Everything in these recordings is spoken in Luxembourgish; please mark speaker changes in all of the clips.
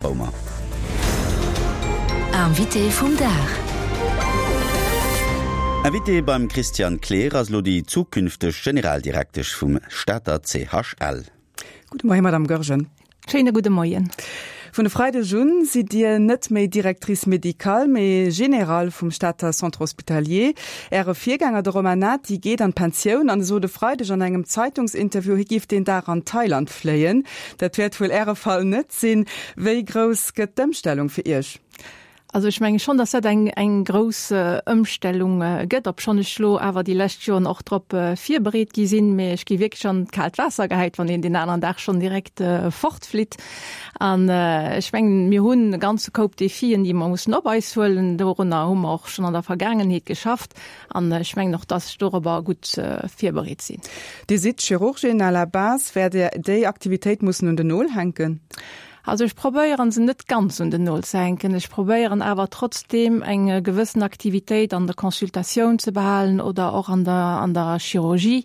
Speaker 1: Baumer.
Speaker 2: Invité vum Dag.
Speaker 1: Invité beim Christian Kleer ass elo déi zukünfteg Generaldirektesch vum Stater CHL.
Speaker 3: Gudde Moien, Madame Goergen.
Speaker 4: Schéine gudde Moien.
Speaker 3: Vun e Freideg un sidd Dir net méi Directrice médicale, mee Générale vum Stater Centre Hospitalier. Äre Virgänger, de Romain Nati, geet an d'Pensioun an e sot e Freideg an engem Zeitungsinterview, hie géif deen Dag an Thailand fléien. Dat wäert wuel Äre Fall net sinn. Wéi grouss gëtt d'Ëmstellung fir Iech?
Speaker 4: Also ech menge schonn, datt dat eng eng grouss Ëmstellung gëtt, obschonn ech lo awer déi lescht Joren och drop virbereet gi sinn. Mee ech gi wierklech an d'kaalt Waasser gehäit, wann een deen aneren Dag schonn direkt fortflitt. An ech mengen, mir hunn e ganze Koup Defien, déi mer mussen op eis huelen. Dorunner hu mer och schonn an der Vergaangenheet geschafft. An ech mengen och, dass ech dorobber gutt virbereet sinn.
Speaker 3: Dir sidd Chirurgin à la base. Wäert Dir déi Aktivitéit mussen un den Nol hänken?
Speaker 4: Also ech probéieren se net ganz un den Nol ze hänken. Ech probéieren awer trotzdeem eng gewëssen Aktivitéit an der Consultatioun ze behalen oder och an der, an der Chirurgie,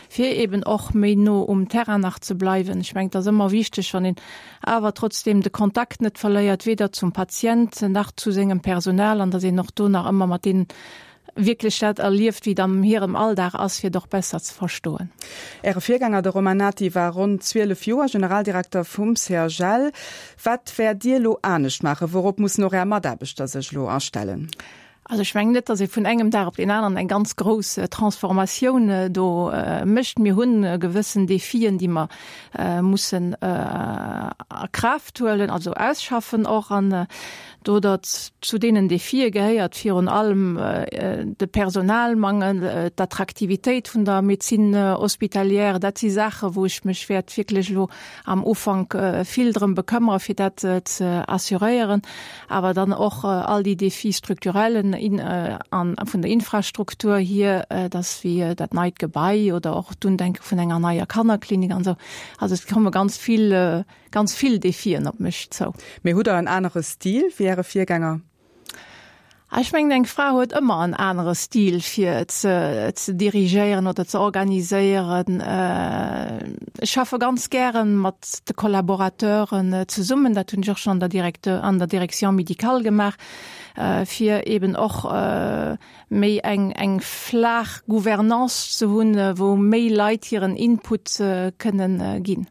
Speaker 4: fir eben och méi no um Terrain nach ze bleiwen. Ech mengen, et ass ëmmer wichteg, wann een awer trotzdeem de Kontakt net verléiert, weder zum Patient nach zu sengem Personal, an dass een och do nach ëmmer mat deenen wierklech dat erlieft, wéi et am hirem Alldag ass, fir et och besser ze verstoen.
Speaker 3: Äre Virgänger, de Romain Nati, war ronn 12 Joer Generaldirekter vum CHL. Wat wäert Dir elo anescht maachen? Wourop mussen och Är Mataarbechter sech elo astellen?
Speaker 4: Also ech mengen net, datt ee vun engem Dag op deen aneren eng ganz grouss Transformatioun do mécht. Mir hunn gewëssen Defien, déi mer mussen a Kraaft huelen, also ausschaffen och. An Do datt zu deenen Defie gehéiert virun allem de Personalmangel, d'Attraktivitéit vun der Médecine hospitalière. Dat si Saache wou ech mech wäert wierklech elo am Ufank vill drëm bekëmmere fir dat ze assuréieren. Awer dann och all déi Défis structurellen an vun der Infrastruktur hier, dass wéi dat neit Gebai oder och d'Undenke vun enger neier Kannerklinik an esou. Also et komme ganz vill Ganz vill Defien op mech zou.
Speaker 3: Mee hutt Der en anere Stil wéi Äre Virgänger?
Speaker 4: Ech mengen, eng Fra huet ëmmer en anere Stil fir ze ze dirigéieren oder ze organiséieren. Ech schaffe ganz gäre mat de Collaborateuren zesummen. Dat hunn ech och schonn an der Directeur, an der Direction médicale gemaach, fir eben och méi eng eng flaach Gouvernance ze hunn, wou méi Leit hiren Input kënnen ginn.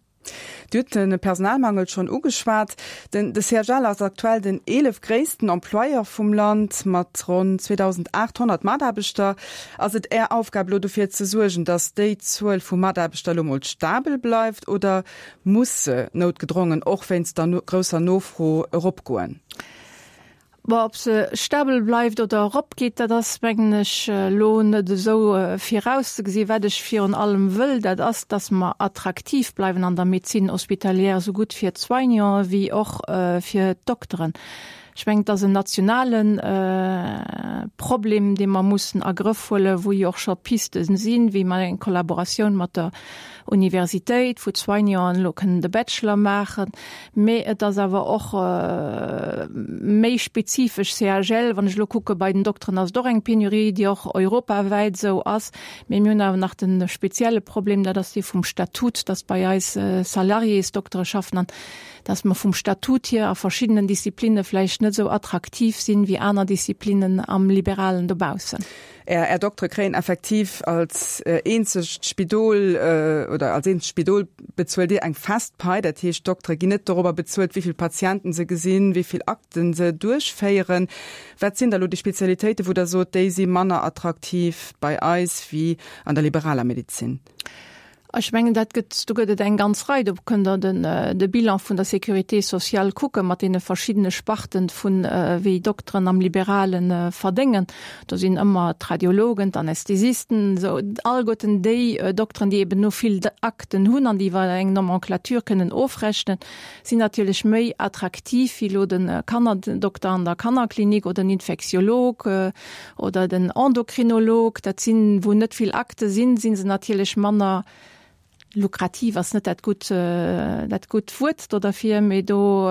Speaker 3: Dir hutt de Personalmangel schonn ugeschwat. Den de CHL ass aktuell den 11 gréissten Employeur vum Land mat ronn 2.800 Mataarbechter. Ass et Är Aufgab elo dofir ze suergen, datt déi Zuel vu Mataarbechter elo mol stabel bleift oder muss se noutgedrongen och wéinst der grousser Nofro eropgoen?
Speaker 4: Bon, ob se stabel bleift oder eropgeet, dat ass, mengen ech, elo net esou virauszegesinn. Wat ech virun allem wëll, dat ass, dass mer attraktiv bleiwen an der Médecine hospitalière, esou gutt fir d'Soignanten wéi och fir d'Dokteren. Ech mengen, et ass en nationale Problem, dee mer mussen a Grëff huelen, wou jo och scho Piste sinn, wéi mer eng Kollaboratioun mat der Universitéit, wou d'Soignanten elo kënnen de Bachelor maachen. Mee et ass awer och méi spezifesch CHL. Wann ech elo kucke bei den Dokteren, ass et och eng Penurie, déi och europawäit esou ass. Mee mir hunn awer nach de spezielle Problem, dat ass dee vum Statut, dass bei eis Salariésdoktere schaffen an dass mer vum Statut hier a verschiddenen Disziplinne vläicht net esou attraktiv sinn, wéi aner Disziplinnen am Liberalen dobaussen.
Speaker 3: Är, Är Doktere kréien effektiv als eenzegt Spidol oder als eenzegt Spidol bezuelt Dir eng fest Pai. Dat heescht, d'Doktere ginn net dorobber bezuelt, wéi vill Patienten se gesinn, wéi vill Akten se duerchféieren. Wat sinn da lo déi Spezialitéiten, wou Der sot, déi si manner attraktiv bei eis wéi an der liberaler Medezin?
Speaker 4: Ech mengen, dat gëtt, do gëtt et eng ganz Rei. Do kënnt Der den, de Bilan vun der Sécurité sociale kucke mat deene verschiddene Sparten vun wéi Dokteren am Liberale verdéngen. Do sinn ëmmer d'Radiologen, d'Anästhesisten, esou alleguerten déi Dokteren, déi eben no vill Akten hunn an déi iwwer eng Nomenclature kënnen ofrechnen, sinn natierlech méi attraktiv wéi elo de Kannerdokter an der Kannerklinik oder den Infektiolog Oder den Endokrinolog, dat sinn, wou net vill Akte sinn, si se natierlech manner. Lukrativ ass net dat gutt, dat gutt Wuert do derfir, mee do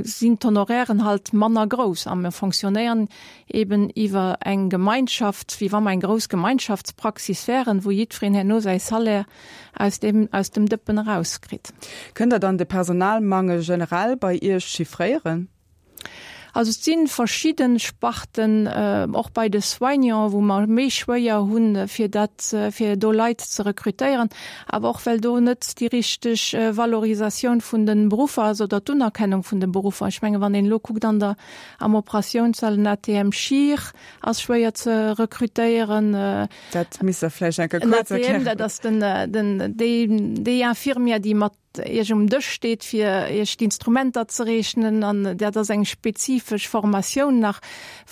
Speaker 4: sinn d'Honorairen halt manner grouss a mir fonctionnéieren eben iwwer eng Gemeinschaft, wéi wa mer eng grouss Gemeinschaftspraxis wären, wou jiddwereen herno säi Salaire aus deem, aus dem Dëppen erauskritt.
Speaker 3: Kënnt Der dann de Personalmangel generell bei Iech chiffréieren?
Speaker 4: Also et si verschidde Sparten, och bei de Soignants, wou mer méi schwéier hunn, fir dat, fir do Leit ze rekrutéieren, awer och well do net déi richteg Valorisatioun vun de Beruffer ass oder d'Unerkennung vun de Beruffer. Ech menge wann een elo kuckt an der, am Operatiounssall, en ATM-Chir ass schwéier ze rekrutéieren.
Speaker 3: Dat misst Der vläicht eng Kéier kuerz erklären.
Speaker 4: En ATM, dat ass den, den, déi, déi Infirmière, déi mat Iech um Dësch steet, fir Iech d'Instrumenter ze reechnen. An dat ass eng spezifesch Formatioun nach,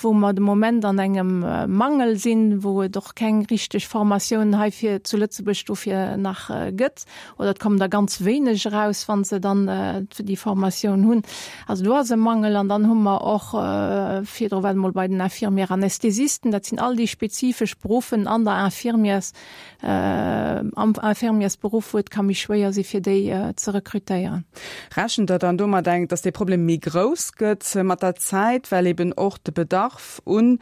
Speaker 4: wou mer de Moment an engem Mangel sinn, wou et och keng richteg Formatioun heifir zu Lëtzebuerg dofir nach gëtt. Oder et kommen der ganz wéineg eraus, wa se dann déi Formatioun hunn. Also do ass e Mangel. An dann hu mer och virdru war et emol bei den Infirmières anesthésisten, dat sinn all déi spezifesch Beruffen an der Infirmières, am Infirmiersberuff, wou et ka méi schwéier si fir déi ze rekrutéieren.
Speaker 3: Rechent Der dann domat eng, datt dee Problem méi grouss gëtt mat der Zäit, well eben och de Bedarf un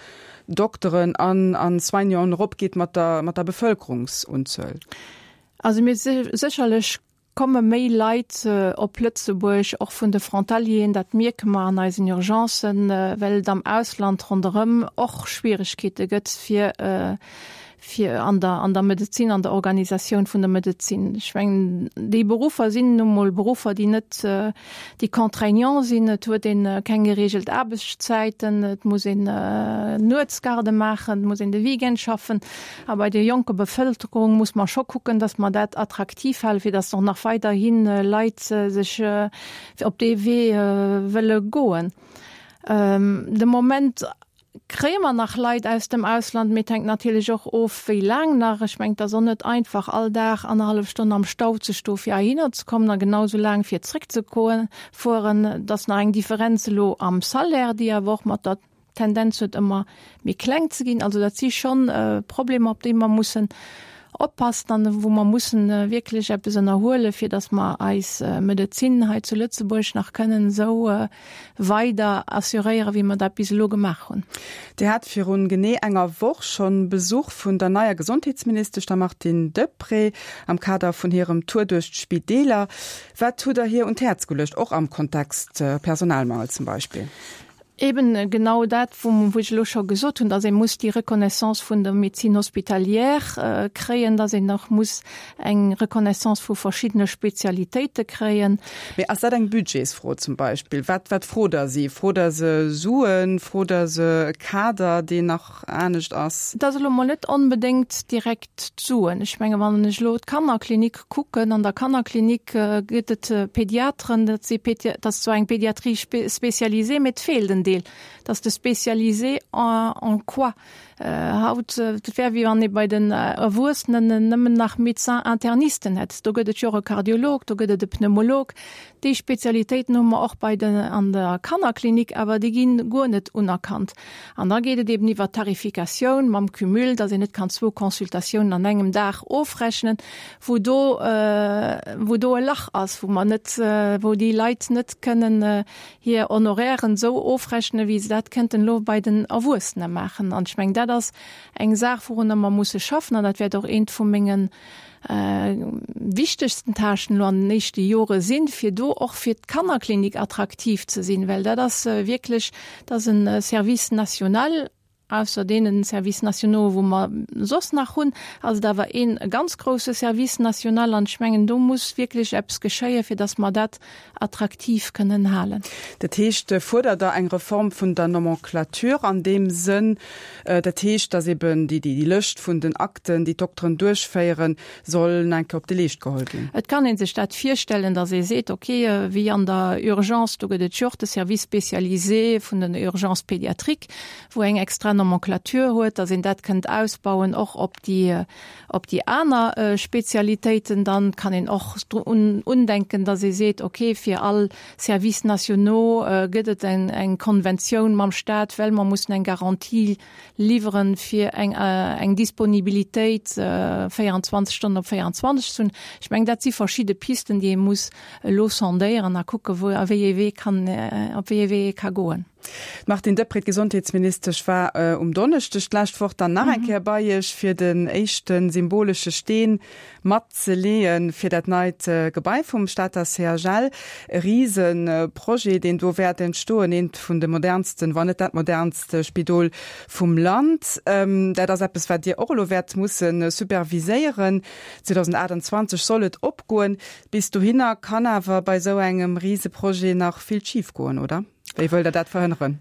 Speaker 3: Dokteren an a Soignanten eropgeet mat der mat der Bevëlkerungsunzuel?
Speaker 4: Also mir sécherlech komme méi Leit op Lëtzebuerg, och vun de Frontalieren, dat mierke mer an eisen Urgencen, well et am Ausland ronderëm och Schwieregkeete gëtt fir fir an der an der Medezin, an der Organisatioun vun der Medezin. Ech mengen, déi Beruffer sinn nu mol Beruffer, déi net, déi contraignant sinn. Et huet ee keng gereegelt Aarbechtszäiten, et muss een Nuetsgarde maachen, et muss een de Weekend schaffen. A bei der jonker Bevëlkerung muss mer scho kucken, dass mer dat attraktiv halen, fir dass och nach weiderhi Leit sech op dee Wee wëlle goen. De Moment kréie mer nach Leit aus dem Ausland, mee et hänkt natierlech och of, wéi laang nach. Ech mengen, et ass och net einfach, all Dag annerhallef Stonn am Stau ze stoe fir heihinner ze kommen a genau esou laang fir zréckzefueren. Et ass nach eng Differenz elo am Salaire, déi awer och mat der Tendenz huet ëmmer méi kleng ze ginn. Also dat si schonn Problemer, op déi mer mussen oppassen an wou mer mussen wierklech eppes ënnerhuelen, fir datt mer eis Medezin hei zu Lëtzebuerg nach kënnen esou weider assuréieren, wéi mer dat bis elo gemaach hunn.
Speaker 3: Dir hat virun genee enger Woch schonn Besuch vun der neier Gesondheetsministesch, der Martine Deprez, am Kader vun hirem Tour duerch d'Spideeler. Wat hutt Der hir un d'Häerz geluecht, och am Kontext Personalmangel zum Beispill?
Speaker 4: Eben genau dat, wou ech elo scho gesot hunn, dass ee muss déi Reconnaissance vun der Médecine hospitalière kréien, dass een och muss eng Reconnaissance vu verschiddene Spezialitéite kréien.
Speaker 3: Mee ass dat eng Budgetsfro zum Beispill? Wat, wat frot Der si? Frot Der se Suen? Frot Der se e Kader, deen nach anescht ass?
Speaker 4: Et ass elo mol net onbedéngt direkt d'Suen. Ech menge wann ech elo d'Kannerklinik kucken, an der Kannerklinik gëtt et Pediateren, dat si dat ass zwar eng Pédiatrie spécialisée, mee et feelt en Deel, dat ass de spécialisé en en quoi. Haut, et wär wéi wann ee bei den Erwuessenen nëmmen nach Médecins internisten hätt. Do gëtt et jo och e Kardiolog, do gëtt et e Pneumolog. Déi Spezialitéiten hu mer och bei den an der Kannerklinik, awer déi ginn guer net unerkannt. An da geet et eben iwwer d'Tarifikatioun mam Cumul, dass een net kann zwou Consultatiounen an engem Dag ofrechnen, wou do, wou do e Lach ass, wou mer net, wou déi Leit net kënnen hir Honorairen esou ofrechnen, wéi se dat kënnten elo bei den Erwuessene maachen. An ech mengen, dat ass eng Saach, wourunner mer musse schaffen, an dat wäert och eent vu mengen wichtegsten Tâchen elo an den éischte Jore sinn, fir do och fir d'Kannerklinik attraktiv ze sinn, well dat ass wierklech, dat ass e Service national, ausser deene Services nationaux, wou mer soss nach hunn, ass et awer ee ganz grouse Service national an ech mengen, do muss wierklech eppes geschéien, fir datt mer dat attraktiv kënnen halen.
Speaker 3: Dat heescht, fuerdert Der eng Reform vun der Nomenclature an deem Sënn, dat heescht, datt eben déi Lëscht vun den Akten, déi d'Dokteren duerchféieren, soll nach eng Kéier op de Leescht geholl ginn?
Speaker 4: Et kann ee sech dat virstellen, datt ee seet, okay, wéi an der Urgence, do gëtt et jo och de Service spécialisé vun den Urgences pédiatriques, wou eng extra. Nomenclature huet, datt een dat kënnt ausbauen och op déi, op déi aner Spezialitéiten. Dann kann een och drun undenken, datt ee seet, okay, fir all Services nationaux gëtt et eng Konventioun mam Stat, well mer mussen eng Garantie liwweren, fir eng, eng Disponibilitéit 24 Stonnen op 24 ze hunn. Ech mengen, dat si verschidde Pisten, déi ee muss elo sondéieren a kucken, wou a wéi ee Wee kann, op wéi ee Wee ee ka goen.
Speaker 3: D'Martine Deprez, d'Gesondheetsministesch, war um Donneschdeg d'lescht Woch dann nach eng Kéier bei Iech, fir den éischte symbolesche Steen mat ze leeë fir dat neit Gebai vum Stater CHL. E Riseprojet, deen do wäert entstoen, eent vun de modernsten, wann net dat modernst Spidol vum Land. Dat ass eppes, wat Dir och elo wäert musse superviséieren. 2028 soll et opgoen. Bis dohinner kann awer bei esou engem Riseprojet nach vill schif goen, oder? Wéi wëllt Der dat verhënneren?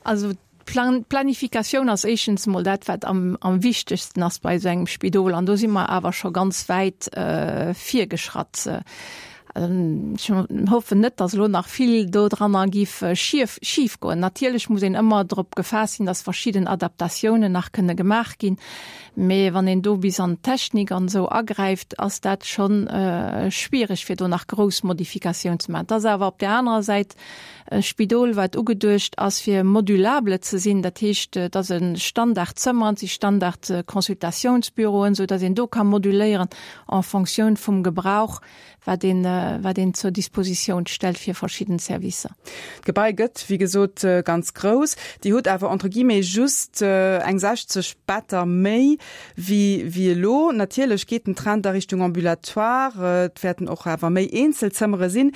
Speaker 4: Also d'Planifikatioun ass éischtens emol dat, wat am, am wichtegsten ass bei esou engem Spidol. An do si mer awer scho ganz wäit virgeschratt. Ech hoffen net, datt elo nach vill dodranner giff schief, schif goen. Natierlech muss een ëmmer drop gefaasst sinn, datt verschidden Adaptatiounen nach kënne gemaach ginn. Mee wann een do bis an d'Technik an esou agräift, ass dat schonn schwiereg, fir do nach grouss Modifikatioun ze maachen. Et ass awer op där anerer Säit e Spidol, wat ugeduecht ass, fir modulable ze sinn. Dat heescht, et ass e Standardzëmmer, et si Standard-Consultatiounsbüroen, esou datt een do ka moduléieren en Fonctioun vum Gebrauch, wat een, wat een zur Dispositioun stellt fir verschidden Servicer.
Speaker 3: D'Gebai gëtt, wéi gesot, ganz grouss. Dir hutt awer entre guillemets just eng 60 Better méi wéi, wéi elo. Natierlech geet den Trend a Richtung Ambulatoire. Et wäerten och awer méi Eenzelzëmmere sinn.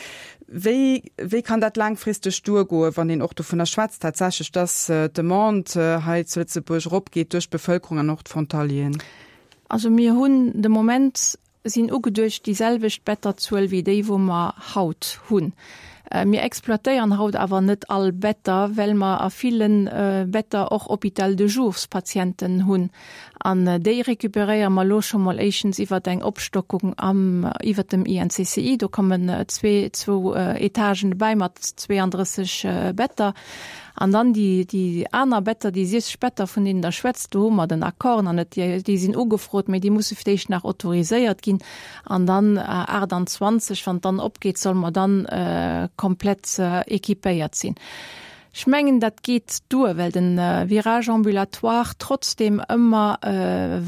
Speaker 3: Wéi, wéi kann dat laangfristeg duergoen, wann een och dovunner schwätzt tatsächlech, dass d'Demande hei zu Lëtzebuerg eropgeet duerch d'Bevëlkerung an och d'Frontalieren?
Speaker 4: Also mir hunn de Moment sinn ugeduecht déi selwecht Betterzuel wéi déi wou mer haut hunn. Mir exploitéieren haut awer net all Better, well mer a ville Better och Hôpital de jours-Patienten hunn. An déi récupéréiere mer elo scho mol éischtens iwwert eng Opstockung am, iwwert dem INCCI. Do kommen zwee, zwou Etagen dobäi mat 32 Better. An dann déi, déi aner Better, déi 60 Better, vun deenen Der schwätzt, do hu mer den Accord nach net. Déi, déi sinn ugefrot, mä déi musse fir d'éischt nach autoriséiert ginn. An dann 28, wann et dann opgeet, solle mer dann komplett équipéiert sinn. Ech mengen, dat geet duer, well de Virage ambulatoire trotzdem ëmmer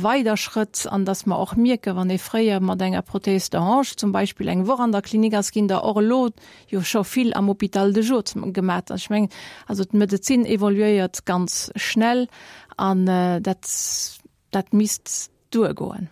Speaker 4: weiderschrëtt an dass mer och mierken, wann ee fréier mat enger Prothèse de hanche zum Beispill eng Woch an der Klinik ass, ginn der och elo jo scho vill am Hôpital de jour gemat. Ech mengen, also d'Medezin evoluéiert ganz schnell an dat, dat misst duergoen.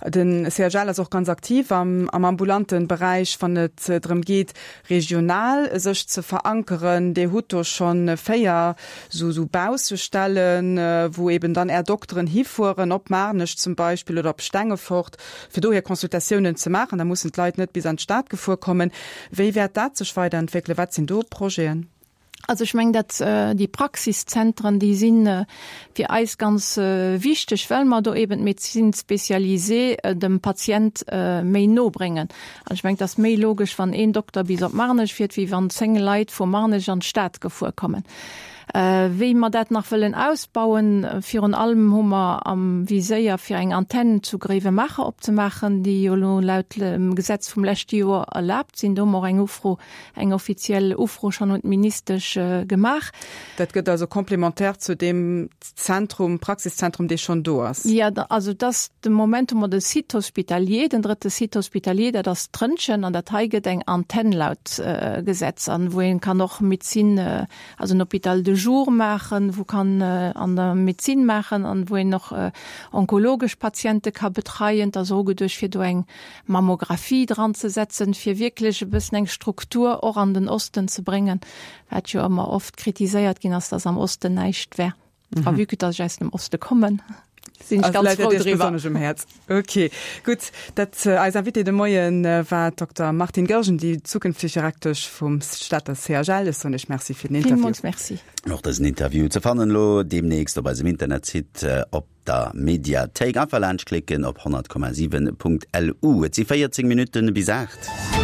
Speaker 3: Den CHL ass och ganz aktiv am am ambulante Beräich, wann et drëm geet, regional sech ze verankeren. Dir hutt do schonn 4 sou sou Baussestellen, wou eben dann Är Dokteren hifueren, op Maarnech zum Beispill oder op Stengefort, fir do hir Consultatiounen ze maachen. Da mussen d'Leit net bis an d'Stad gefuer kommen. Wéi wäert dat sech weiderentwéckelen? Wat sinn do Projeten?
Speaker 4: Also ech mengen, dat déi Praxiszentren, déi si fir eis ganz wichteg, well mer do eben d'Médecine spécialisée dem Patient méi no bréngen. An ech mengen, et ass méi logesch, wann een Dokter bis op Marnech fiert, wéi wann 10 Leit vu Marnech an d'Stad gefuer kommen. Wéi mer dat nach wëllen ausbauen, virun allem hu mer am Viséier fir eng Antenn zu Gréiwemaacher opzemaachen, déi jo elo laut Gesetz vum leschte Joer erlaabt sinn. Do hu mer och eng Ufro, eng offiziell Ufro schonn un d'Ministesch gemaach.
Speaker 3: Dat gëtt also complémentaire zu deem Zentrum, Praxiszentrum, dee schonn do ass?
Speaker 4: Jo, also et ass de Moment hu mer de Site hospitalier, den drëtte Site hospitalier, dat ass Trëntgen, an dat hei gëtt eng Antenn laut Gesetz, an wou een kann och Médecine, also en Hôpital de jour maachen, wou kann an der Médecine maachen an wou een och onkologesch Patiente ka betreien. Et ass och ugeduecht fir do eng Mammographie dran ze setzen, fir wierklech e bëssen eng Struktur och an den Osten ze bréngen, wat jo ëmmer oft kritiséiert ginn ass, dass am Osten näischt wär. A vue que dass ech aus dem Oste kommen, sinn ech ganz frou driwwer.
Speaker 3: Besonnesch um Häerz. Ok, gutt. Dat eis Invitée de Moien war d'Dokter Martine Goergen, déi zukünfteg Direktesch vum Stater CHL. Ech soen Iech Merci fir den Interview.
Speaker 4: Villmools Merci.
Speaker 1: Och dësen Interview ze fannen elo deemnächst op eisem Internetsite op der Mediathéik. Einfach laanschtklicken op 100,7.lu. Et si 14 Minutten bis 8.